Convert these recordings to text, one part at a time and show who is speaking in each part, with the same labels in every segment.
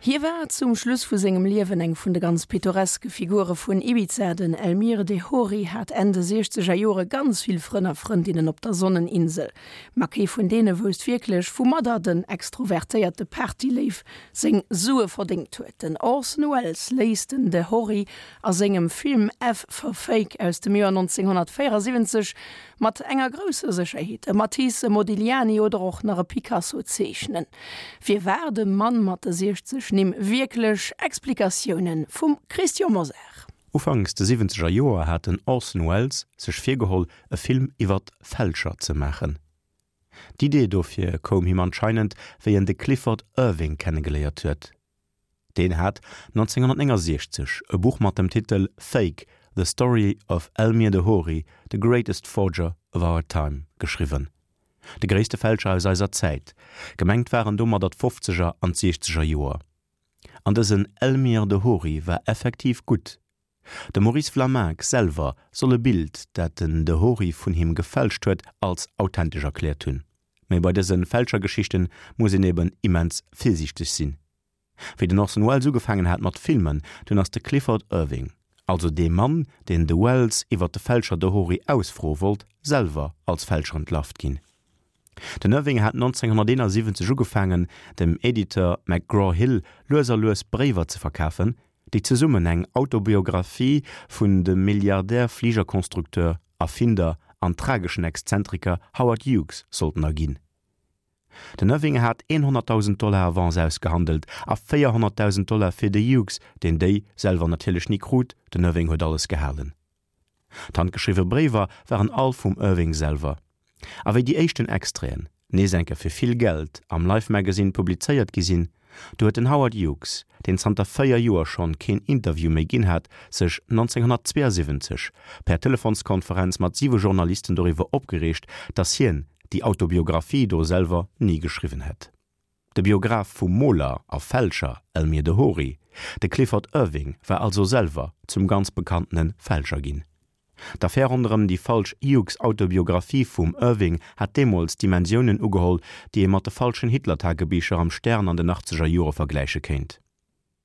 Speaker 1: Hie war zum Schluss vu sengem Liewen eng vun de ganz pittoreske Figure vun Ibiza. Den Elmyr de Hory hat Enn de siechzeger Jore ganz vill Frënn a Frëndinnen op der Sonneninsel. Ma kee vun deene wousst wierklech, woumadder den extrovertéierte Partyléiw seng Sue verdéngt huet. Den Orson Welles léisst den de Hory a sengem Film F for Fake aus dem Joer 1974 mat enger grousser Sécherheet e Matisse, e Modigliani oder och nach e Picasso zeechnen. Wie war de Mann mat de 60 Nimm wierklech? Explikatioune vum Christian Mosar.
Speaker 2: Ufanks de siwwenzeger Joer hat den Orson Welles sech virgeholl, e Film iwwert Fälscher ze maachen. D'Idee dofir koum him anscheinend, wéi en de Clifford Irving kennegeléiert huet. Deen hat 1969 e Buch mat dem Titel Fake, The Story of Elmyr de Hory, the Greatest Forger of Our Time geschriwwen. De gréisste Fälscher aus eiser Zäit. Gemengt waren domadder d'Fofzeger an d'Siechzeger Joer. An dësen Elmyr de Hory war effektiv gutt. De Maurice Vlaminck selwer soll e Bild, dat den de Hory vun him gefälscht huet, als authentesch erkläert hunn. Mee bei dëse Fälschergeschichten muss een eben immens virsiichteg sinn. Wéi den Orson Welles ugefaangen hat mat filmen, dunn ass de Clifford Irving, also dee Mann, deen de Welles iwwer de Fälscher de Hory ausfroe wollt, selwer als Fälscher entlarvt ginn. Den Irving hat 1971 ugefaangen, dem Editeur McGraw-Hill lues a lues Bréiwer ze verkafen, déi zesummen eng Autobiographie vun dem Milliardär-Fligerconstructeur, Erfinder an trageschen Exzentriker Howard Hughes sollten erginn. Den Irving hat 100.000 Dollar Avance ausgehandelt a 400.000 Dollar fir de Hughes, deen déi selwer natierlech ni krut, den Irving huet alles gehalen. D'handgeschriwwe Bréiwer waren all vum Irving selwer. A wéi déi éischten Extraiten, nees eng Kéier fir vill Geld, am Life Magazine publizéiert gi sinn, du huet den Howard Hughes, deen zanter 4 Joer schonn keen Interview méi ginn hat, sech 1972 per Telefonskonferenz mat siwe Journalisten doriwwer opgereegt, datt hien déi Autobiographie do selwer ni geschriwwen hätt. De Biograph vum Moler a Fälscher Elmyr de Hory, de Clifford Irving, war also selwer zum ganz bekanntene Fälscher ginn. D'Affär ronderëm déi falsch Hughes-Autobiographie vum Irving hat deemools Dimensiounen ugeholl, déi ee mat de falschen Hitler-Tagebicher am Stern an den achtzeger Jore vergläiche kéint.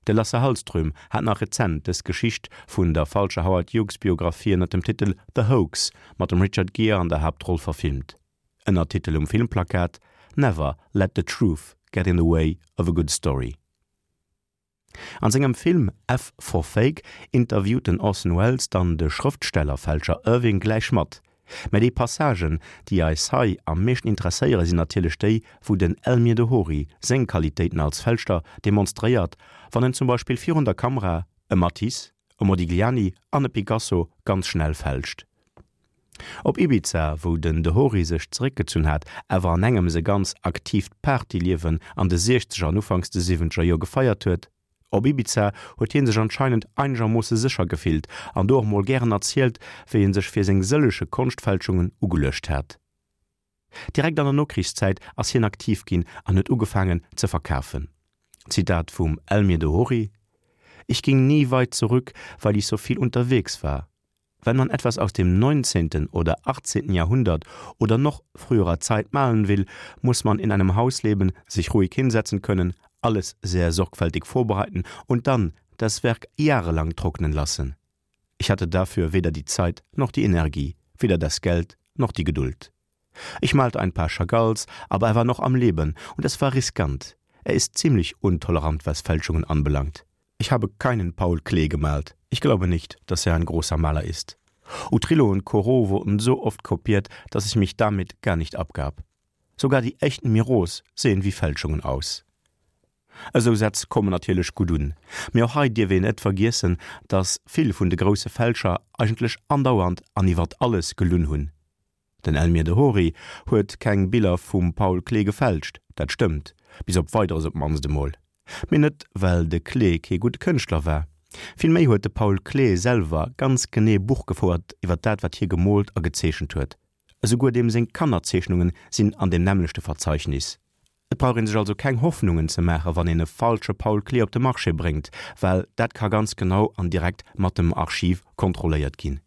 Speaker 2: De Lasse Hallström hat nach rezent dës Geschicht vun der falscher Howard Hughes-Biographie ënner dem Titel The Hoax mat dem Richard Gere an der Haaptroll verfilmt. Ënnertitel um Filmplakat, Never let the truth get in the way of a good story. An sengem Film F for Fake interviewt den Orson Welles dann de Schrëftstellerfälscher Irving gläich mat. Mä déi Passagen, déi eis hei am meeschten interesséiere sinn natierlech déi, wou den Elmyr de Hory seng Qualitéiten als Fälschter demonstréiert, wann en zum Beispill virun der Kamera e Matisse, e Modigliani an e Picasso ganz schnell fälscht. Op Ibiza, wou den de Hory sech zeréckgezunn hat, awer an engems e ganz aktiivt Partyliewen an de siechzeger an ufanks de siwwenzeger Joer gefeiert huet. Op Ibiza huet hie sech anscheinend einegermoosse sécher gefillt an do och mol gären erzielt, wéi e sech fir seng sëllege Konschtfälschungen ugeluecht hat. Direkt an der Nokrichszäit ass hien aktiv ginn an huet ugefaangen ze verkafen. Zitat vum Elmyr de Hory, Ich ging nie weit zurück, weil ich so viel unterwegs war. Wenn man etwas aus dem 19. oder 18. Jahrhundert oder noch früherer Zeit malen will, muss man in einem Haus leben, sich ruhig hinsetzen können, alles sehr sorgfältig vorbereiten und dann das Werk jahrelang trocknen lassen. Ich hatte dafür weder die Zeit noch die Energie, weder das Geld noch die Geduld. Ich malte ein paar Chagalls, aber er war noch am Leben und es war riskant. Er ist ziemlich untolerant, was Fälschungen anbelangt. Ich habe keinen Paul Klee gemalt. Ich glaube nicht, dass er ein großer Maler ist. Utrillo und Corot wurden so oft kopiert, dass ich mich damit gar nicht abgab. Sogar die echten Miros sehen wie Fälschungen aus. Esou Sätz kommen natierlech gutt un, mee och hei dierf een net vergiessen, dass vill vun de grousse Fälscher eigentlech andauernd an iwwert alles gelunn hunn. Den Elmyr de Hory huet keng Biller vum Paul Klee gefälscht, dat stëmmt, bis op Weideres op d'mannst emol. Mee net well de Klee kee gudde Kënschtler war. Villméi huet de Paul Klee selwer ganz genee Buch gefouert iwwer dat wat hie gemoolt a gezeechent huet. Esouguer deem seng Kannerzeechnunge sinn an deem nämmlechte Verzeichnis. Et brauch een sech also keng Hoffnungen ze maache wann een e falsche Paul Klee op de Marché bréngt, well dat ka ganz genau an direkt mat dem Archiv kontrolléiert ginn.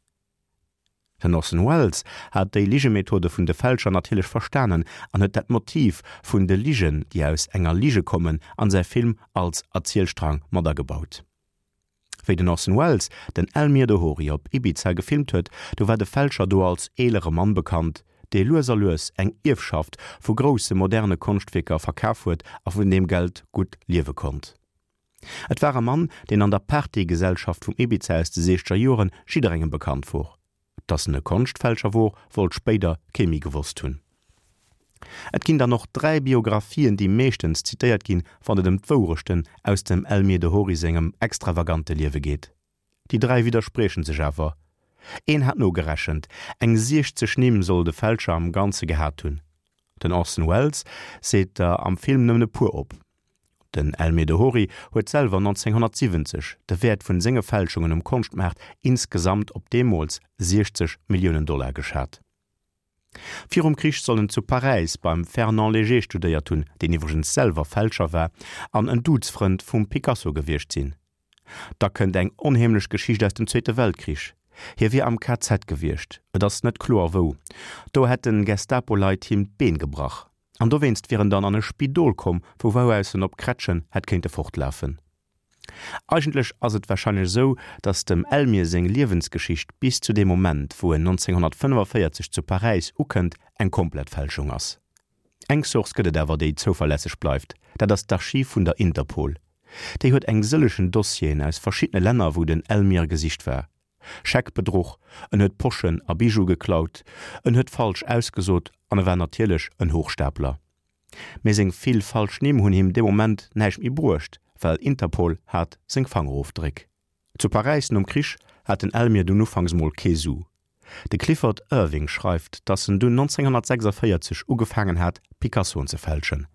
Speaker 2: Den Orson Welles hat déi Ligemethode vun de Fälscher natierlech verstanen an huet dat Motiv vun de Ligen, déi aus enger Lige kommen, an säi Film als Erzielstrang mat agebaut. Wéi den Orson Welles den Elmyr de Hory op Ibiza gefilmt huet, du war de Fälscher do als eelere Mann bekannt, dee lues a lues eng Ierfschaft vu grousse moderne Konschtwierker verkaf huet a vun deem Geld gutt liewe konnt. Et war e Mann, deen an der Partygesellschaft vum Ibiza aus de siechzeger Joren jidderengem bekannt wor. Dass en e Konschtfälscher wor, wollt spéider kee méi gewosst hunn. Et ginn dann och 3 Biographien, déi meeschtens zitéiert ginn, wann et ëm d'Wourechten aus dem Elmyr de Hory sengem extravagante Liewe geet. Déi 3 widderspriechen sech awer. Een hat nogerechent, eng 60 Nimm soll de Fälscher am Ganze gehat hunn. Den Orson Welles seet der am Film nëmmen e puer op. Den Elmyr de Hory huet selwer 1970 de Wäert vun senge Fälschungen um Konschtmaart insgesamt op deemools 60 Milliounen Dollar geschat. Virum Krich soll en zu Paräis beim Fernand Léger studéiert hunn, deen iwwregens selwer Fälscher war an en Duzfrënd vum Picasso gewiescht sinn. Da kënnt eng onheemlech Geschicht aus dem Zweete Weltkrich. Hie wier am KZ gewiescht, et ass net kloer wou. Do hätten Gestapo-Leit him d'Been gebrach an dowéinst wier en dann an e Spidol komm, vu wou aus en op Krätschen hätt kéinte fortlafen. Eigentlech ass et warscheinlech esou, datt dem Elmyr seng Liewensgeschicht bis zu deem Moment, wou en 1945 zu Paräis ukënnt, eng komplett Fälschung ass. Eng Source gëtt et awer, déi zouverlässeg bleift, dat ass d'Archiv vun der Interpol. Déi huet eng sëllechen Dossieren aus verschiddene Länner, wou den Elmyr gesicht war. Scheckbedruch, en huet Poschen a Bijoue geklaut, en huet falsch ausgesot an e war natierlech en Hochstapler. Mee seng vill falsch Nimm hunn him dee Moment näischt méi bruecht, well Interpol hat seng Fangerofdréck. Zu Paräis nom Krich hat den Elmyr dunn ufanks mol kee Su. De Clifford Irving schreift, datt en dunn 1946 ugefaangen hat, Picassoen ze fälschen.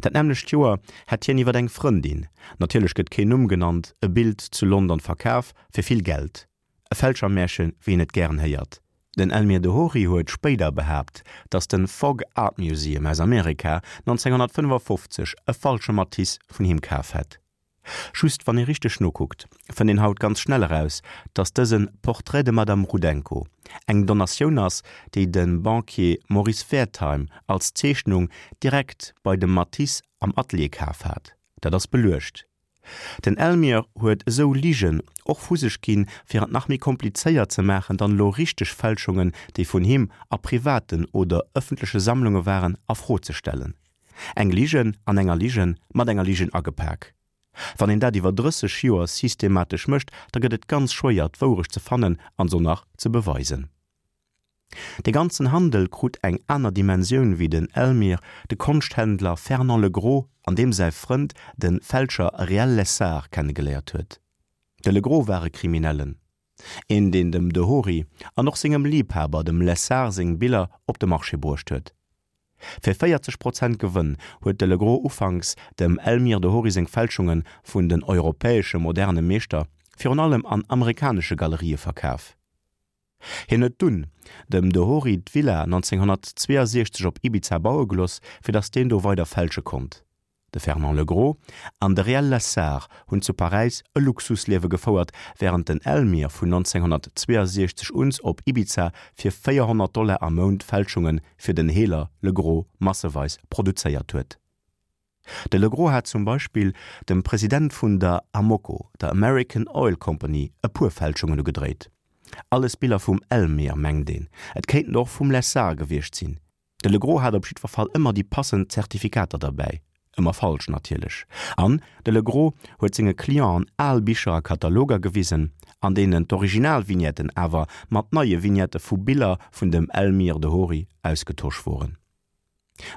Speaker 2: Dat nämmlecht Joer hätt hien iwwer eng Frëndin, natierlech gëtt keen Numm genannt, e Bild zu London verkaf, fir vill Geld. E Fälschermärche wéi een et gären héiert. Den Elmyr de Hory huet spéider behaapt, datt de Fogg Art Museum aus Amerika 1955 e falsche Matisse vun him kaf hätt. Just wann ee richteg nokuckt, fënnt een haut ganz schnell eraus, datt dëse Portrait de Madame Rudenko eng Donatioun ass, déi de Banquier Maurice Wertheim als Zeechnung direkt bei dem Matisse am Atelier kaf hat. Dat ass beluecht. Den Elmyr huet esou Ligen och vu sech ginn, fir et nach méi komplizéiert ze maachen, dann elo richteg Fälschungen, déi vun him a privaten oder ëffentleche Sammlunge waren, a Fro ze stellen. Eng Ligen an enger Ligen mat enger Ligen agepak. Wann een dat iwwer 30 Joer systematesch mécht, da gëtt et ganz schwéier d'Wourecht ze fannen an se nach ze beweisen. De ganzen Handel krut eng aner Dimensioun wéi den Elmyr de Konschthändler Fernand Legros an deem säi Frënd de Fälscher Réal Lessard kennegeléiert huet. De Legros war e Kriminellen, een deen dem de Hory an och sengem Liebhaber dem Lessard seng Biller op de Marché bruecht huet. Fir 40 Prozent Gewënn huet de Legros ufanks dem Elmyr de Hory seng Fälschunge vun den europäesche moderne Meeschter, virun allem an amerikanesche Galerië verkaf. Hien huet dunn dem de Hory d'Villa 1962 op Ibiza baue geloss, fir datt deen do weider fälsche konnt. De Fernand Legros an de Réal Lessard hunn zu Paräis e Luxusliewe gefouert, wärend den Elmyr vun 1962 uns op Ibiza fir 400 Dollar am Mount Fälschunge fir den Heeler Legros masseweis produzéiert huet. De Legros hat zum Beispill dem President vun der Amoco, der American Oil Company, e puer Fälschungen ugedréit. Alles Biller vum Elmyr, mengt een, et kéinten och vum Lessard gewiescht sinn. De Legros hat op jiddwer Fall ëmmer déi passend Zertifikater derbäi, ëmmer falsch natierlech. An de Legros huet senge Clienten al Bicher a Kataloger gewisen, an deenen d'Originalvignetten awer mat neie Vignette vu Biller vun dem Elmyr de Hory ausgetosch woren.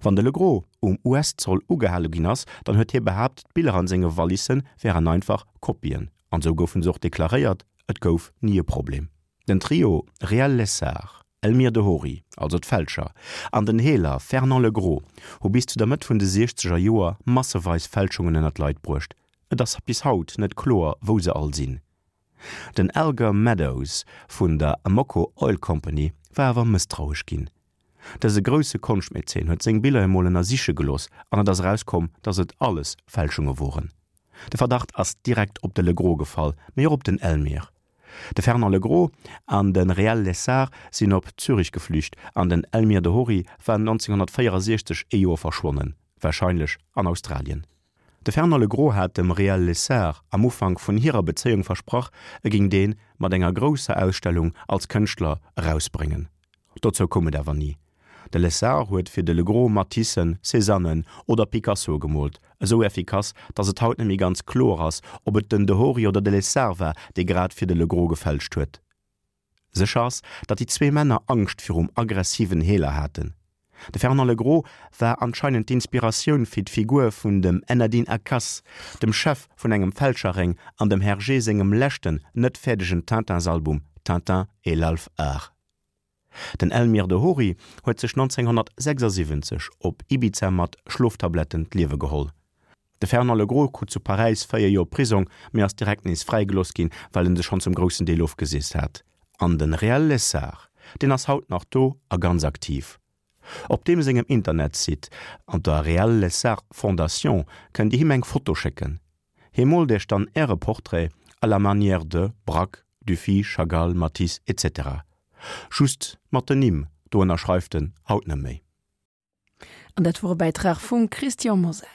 Speaker 2: Wann de Legros um US-Zoll ugehale ginn ass, dann huet hie behaapt, d'Biller an senge Wallisse wären einfach Kopien, an esou goufen se och deklaréiert, et gouf ni e Problem. Den Trio Réal Lessard, Elmyr de Hory, also d'Fälscher, an den Heeler Fernand Legros hu bis zu der Mëtt vun de siechzeger Joer masseweis Fälschungen ënner d'Leit bruecht. Et ass bis haut net kloer, wou se all sinn. Den Alger Meadows vun der Amoco Oil Company war awer mësstrauesch ginn. Dëse grousse Konschtmäzen huet seng Biller emol ënnersiche gelooss an et ass erauskomm, datt et alles Fälschunge woren. De Verdacht ass direkt op de Legros gefall, mee och op den Elmyr. De Fernand Legros an de Réal Lessard sinn op Zürich geflücht an den Elmyr de Hory war 1964 ee Joer verschwonnen, warscheinlech an Australien. De Fernand Legros hat dem Réal Lessard am Ufank vun hirer Bezéiung versprach, e géing dee mat enger grousser Ausstellung als Kënschtler erausbréngen. Dozou koum et awer ni. De Lessard huet fir de Legros Matissen, Cézannen oder Picassoe gemoolt, esou effikass, datt et haut net méi ganz kloer ass, ob et den de Hory oder de Lessard war, dee grad fir de Legros gefälscht huet. Sécher ass, datt déi zwee Männer Angscht virum aggressiven Heeler haten. De Fernand Legros war anscheinend d'Inspiratioun fir d'Figur vun dem Ennadin Akas, dem Chef vun engem Fälscherréng an dem Hergé sengem leschten net fäerdegen Tintins-Album Tintin et l'Alf Art. Den Elmyr de Hory huet sech 1976 op Ibiza mat Schloftabletten d'Liewe geholl. De Fernand Legros krut zu Paräis 4 Joer Prisong, mee ass direkt nees fräigelooss ginn, well en sech schonn zum groussen Deel ofgeseest hat. An den Réal Lessard, deen ass haut nach do a ganz aktiv. Op deem sengem Internetsite an der Réal Lessard Fondation kënnt Dir him eng Foto schécken. Hie moolt Iech dann Äre Portrait à la manière de Braque, Dufy, Chagall, Matisse, etc. Just mat den Nimm, do ënnerschreift en haut net méi.
Speaker 1: An dat wor e Bäitrag vum Christian Mosar.